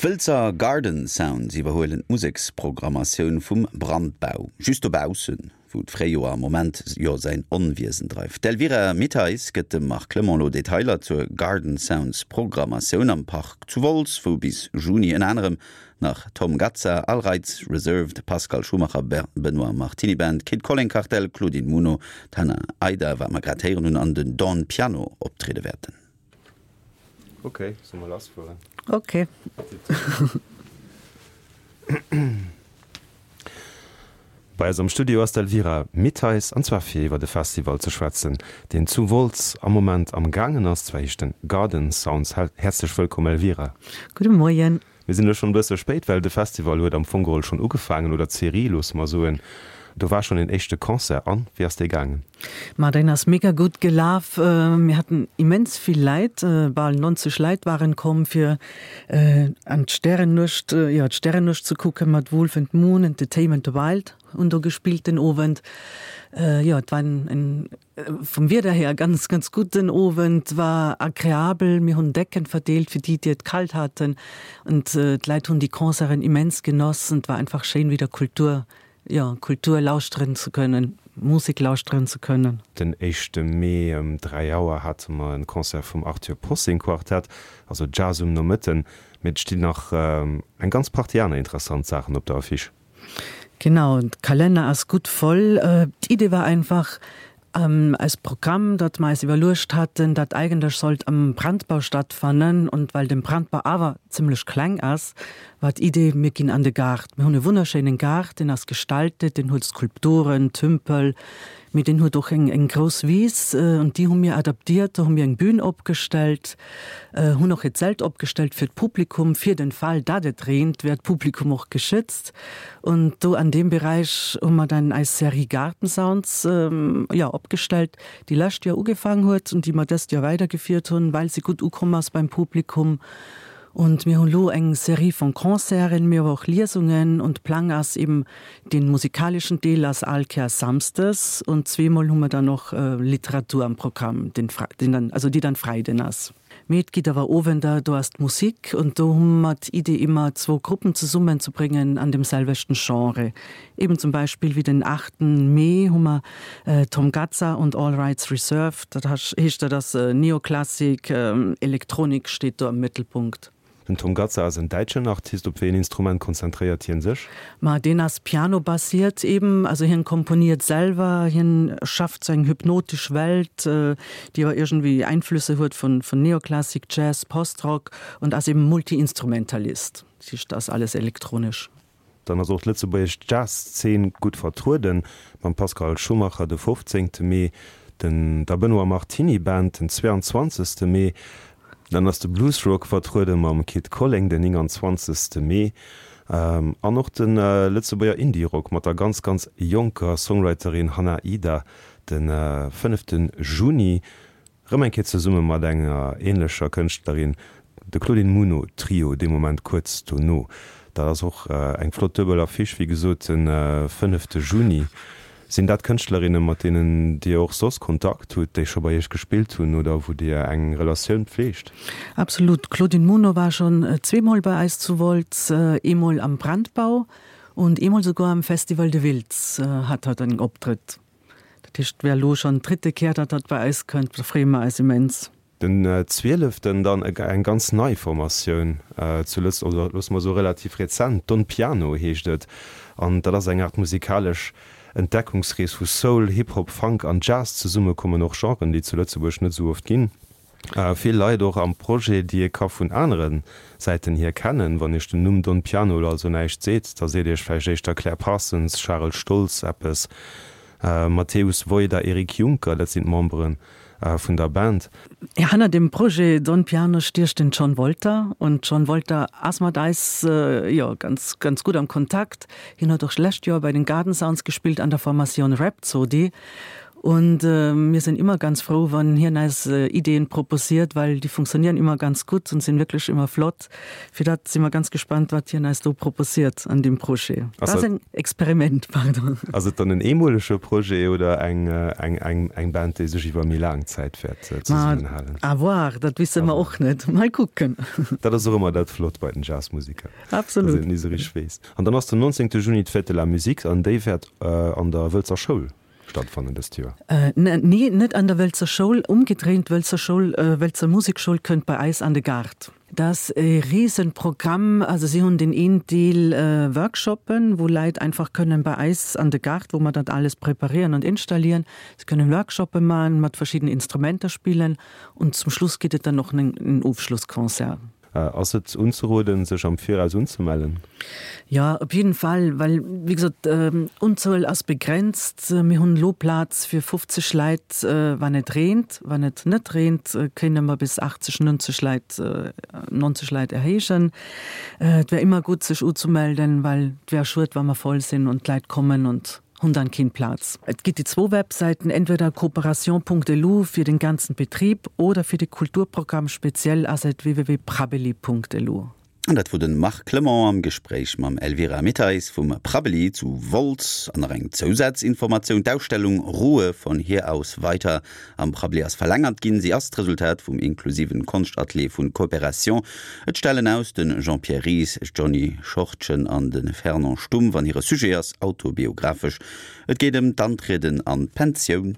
D'Wëlzer Garden Sounds iwwerhuelen d'Museksprogrammatioun vum Brandbau, just dobaussen, wou d'Fréijoer am Moment jo säin Onwiesen dreift. D'Elvira Mittheis gëtt dem Marc Clement elo Detailer zur Garden Sounds Programmatioun am Park zu Wolz, wou bis Juni ënner anerem nach Tom Gazza, Al Reitz, Reserved, Pascal Schumacher, Benoît Martiny Band, Kid Colling Kartell, Claudine Muno, d'Hannah Aida, wat mer grad héieren hunn, an den Don Piano optriede wäerten. Ok, solle mer lass fueren? Ok. Bei eis am Studio ass d'Elvira Mittheis, an zwar fir iwwer e Festival ze schwätzen, deen zu Wolz am Moment am gaangen ass. Zwar heescht en Garden Sounds. Häerzlech wëllkomm Elvira. Gudde Moien. Mir sinn elo schonn e bësse spéit, well de Festival huet am Fong geholl schonn ugefaangen, oder d'Serie, loosse mer soen. Do war schonn een éischte Concert. An wéi ass dee gaangen? Ma deen ass mega gutt gelaf. Mir haten immens vill Läit, bal 90 Läit waren komm fir an d'Stärennuecht, jo d'Stärennuecht ze kucken mat Wolf and Moon, Entertainment the Wild hunn do gespillt den Owend. Jo et war en Vum Wieder her ganz ganz gutt den Owend, war agreabel. Mir hunn Decken verdeelt fir déi déi et kalt haten und d'Leit hunn déi Concerten immens genoss und war einfach schéin wieder Kultur, jo Kultur lauschteren ze kënnen, Musek lauschteren ze kënnen. Den éischte Mee ëm 3 Auer hate mer en Concert vum Arthur Possing Quartett, also Jazz um Nomëtten. Mee et stinn nach eng ganz Partie aner interessant Saachen op der Affiche. Genau, de Kalenner ass gutt voll. D'Idee war einfach, eist Programm, dat mer eis iwwerluecht haten, dat eigentlech sollt am Brandbau stattfannen. Und well den Brandbau awer zimmlech kleng ass, war d'Idee, mir ginn an de Gaart. Mir hunn e wunnerschéinen Gaart, deen ass gestaltet, deen huet Skulpturen, Tümpel, mee deen huet och eng eng grouss Wiss und déi hu mir adaptiert. Do hu mir eng Bühn opgestellt. Hunn och e Zelt opgestellt fir d'Publikum, fir den Fall dat et reent, wär d'Publikum och geschützt. Und do an deem Beräich hu mer dann eis Serie Gartensounds, jo, opgestellt, déi lescht Joer ugefaang huet und déi mer dëst Joer weidergefiert hunn, well se gutt ukomm ass beim Publikum. Und mir hunn elo eng Serie von Concerten, mee awer och Liesungen und Plang ass eben den musikalischen Deel ass all Kéiers samsdes und zweemol hu mer dann och Literatur am Programm, den den dann, also déi dann Freiden ass. Mee et gitt awer Owender, do ass d'Musik und do hu mer d'Idee immer zwou Gruppen zesummen ze bréngen an dem selwechten Genre. Eben zum Beispill wéi den 8 Mee hu mer Tom Gazza und All Rights Reserved, dat heescht dat ass Neoklassik, Elektronik steet do am Mëttelpunkt. Den Tom Gazza ass en däitschen Artist. Op wéi een Instrument konzentréiert hien sech? Ma deen ass pianobasiert eben, also hien komponiert selwer, hien schafft sou eng hypnotesch Welt, déi awer iergendwéi Einflüsse huet vun Neoklassik, Jazz, Postrock und ass eben Multiinstrumentalist, dat heescht ass alles elektronesch. Dann ass och d'lëtzebuergesch Jazzszen gutt vertrueden, mam Pascal Schumacher de 15 Mee, den der Benoît Martiny Band den 22 Mee. Dann ass de Bluesrock vertruede mam Kid Colling den 29 Mee an och de Lëtzebuerger Indie-Rock mat der ganz ganz jonker Songwriterin Hannah Ida de 5 Juni. Rëm eng Kéier zesumme mat enger ähnlecher Kënschtlerin, de Claudine Muno Trio, dee Moment kuerz dono. Dat ass och eng flott duebel Affiche, wéi gesot de fënnefte Juni. Sinn dat Kënschtlerinnen, mat deenen Dir och soss Kontakt hutt, déi scho bei Iech gespillt hunn oder wou Dir eng Relatioun pfleegt? Absolut. D'Claudine Muno war schonn zweemol bei eis zu Wolz, eemol am Brandbau und eemol souguer am Festival de Wiltz hat hatt en Optrëtt. Dat heescht, et wär elo schonn d'dritte Kéier, datt hatt bei eis kënnt. Da freeë mer eis immens. Den zwieleften dann eng ganz nei Formatioun zu Lëtz, oder loosse mer soe relativ rezent, Don Piano heescht et, an dat ass eng Aart musikalesch Entdeckungsrees, wou Soul, Hip-Hop, Funk an Jazz zesummekommen, och Genren, déi zu Lëtzebuerg net esou oft ginn. Vill Leit och am Projet, déi ee ka vun anere Säiten hier kennen. Wann Iech den Numm Don Piano elo also näischt seet, da seet Iech vläicht éischter Claire Parsons, Charel Stoltz eppes, Mateusz Wojda, Eric Juncker, dat sinn d'Membere vun der Band. Hanner dem Projet Don Piano stiecht den John Wolter und John Wolter ass mat eis jo ganz ganz gutt am Kontakt. Hien huet och lescht Joer bei den Garden Sounds gespillt an der Formatioun Rhapsody. Und äh, mir sind immer ganz froh, wann hien eis äh, Ideen proposiert, weil die funktionieren immer ganz gut und sind wirklich immer flott. Fir dat si mer ganz gespannt, wat hien eis do proposiert an deem Projet. Dat ass en Experiment, pardon. Ass et dann en eemolege Projet oder eng, eng, eng, eng Band, déi sech iwwer méi laang Zäit wäert zesummenhalen? À voir, dat wisse mer och net. Mol kucken. Dat ass och ëmmer dat Flott bei den Jazzmusiker, dass een et ni esou richteg weess. An dann ass den 19. Juni d'Fête de la Musique an déi wäert an der Wëlzer Schoul stattfannen dëst Joer. Nee, net an der Wëlzer Schoul. Umgedréint, d'Wëlzer Schoul, Wëlzer Musekschoul kënnt bei eis an de Gaart. Dat ass e Riesenprogramm. Also si hunn deen een Deel Workshoppen, wou Leit einfach kënnen bei eis an de Gaart, wou mer dat alles preparieren und installieren, se kënnen Workshoppe man, mat verschiddenen Instrumenter spillen und zum Schluss gëtt et dann och en Ofschlussconcert. Ass et unzeroden, sech am Viraus unzemellen? Jo, op jidden Fall, well wéi gesot, Unzuel ass begrenzt. Mir hunn elo Plaz fir 50 Leit, wann et reent. Wann et net reent, kéinte mer bis 80, 90 Leit, 90 Leit erhéijen. Et wär ëmmer gutt, sech uzemelden, well et wär schued, wa mer voll sinn an d'Leit kommen und hunn dann keen Plaz. Et gitt déi zwou Websäiten, entweder cooperation.lu fir den ganzen Betrieb oder fir de Kulturprogramm speziell ass et www.prabbeli.lu. An dat wor den Marc Clement am Gespréich mam Elvira Mitteis vum Prabbeli zu Wolz. An nach eng Zousazinformatioun, D'Ausstellung Ruhe von hier aus weiter am Prabbeli ass verlängert ginn. Si ass d'Resultat vum inklusiven Konschtatelier vun Coopération. Et stellen aus de Jean-Pierre Ries, Johny Schortgen an de Fernand Stumpf an hire Sujet ass autobiographesch. Et geet ëm d'Antrieden an d'Pensioun.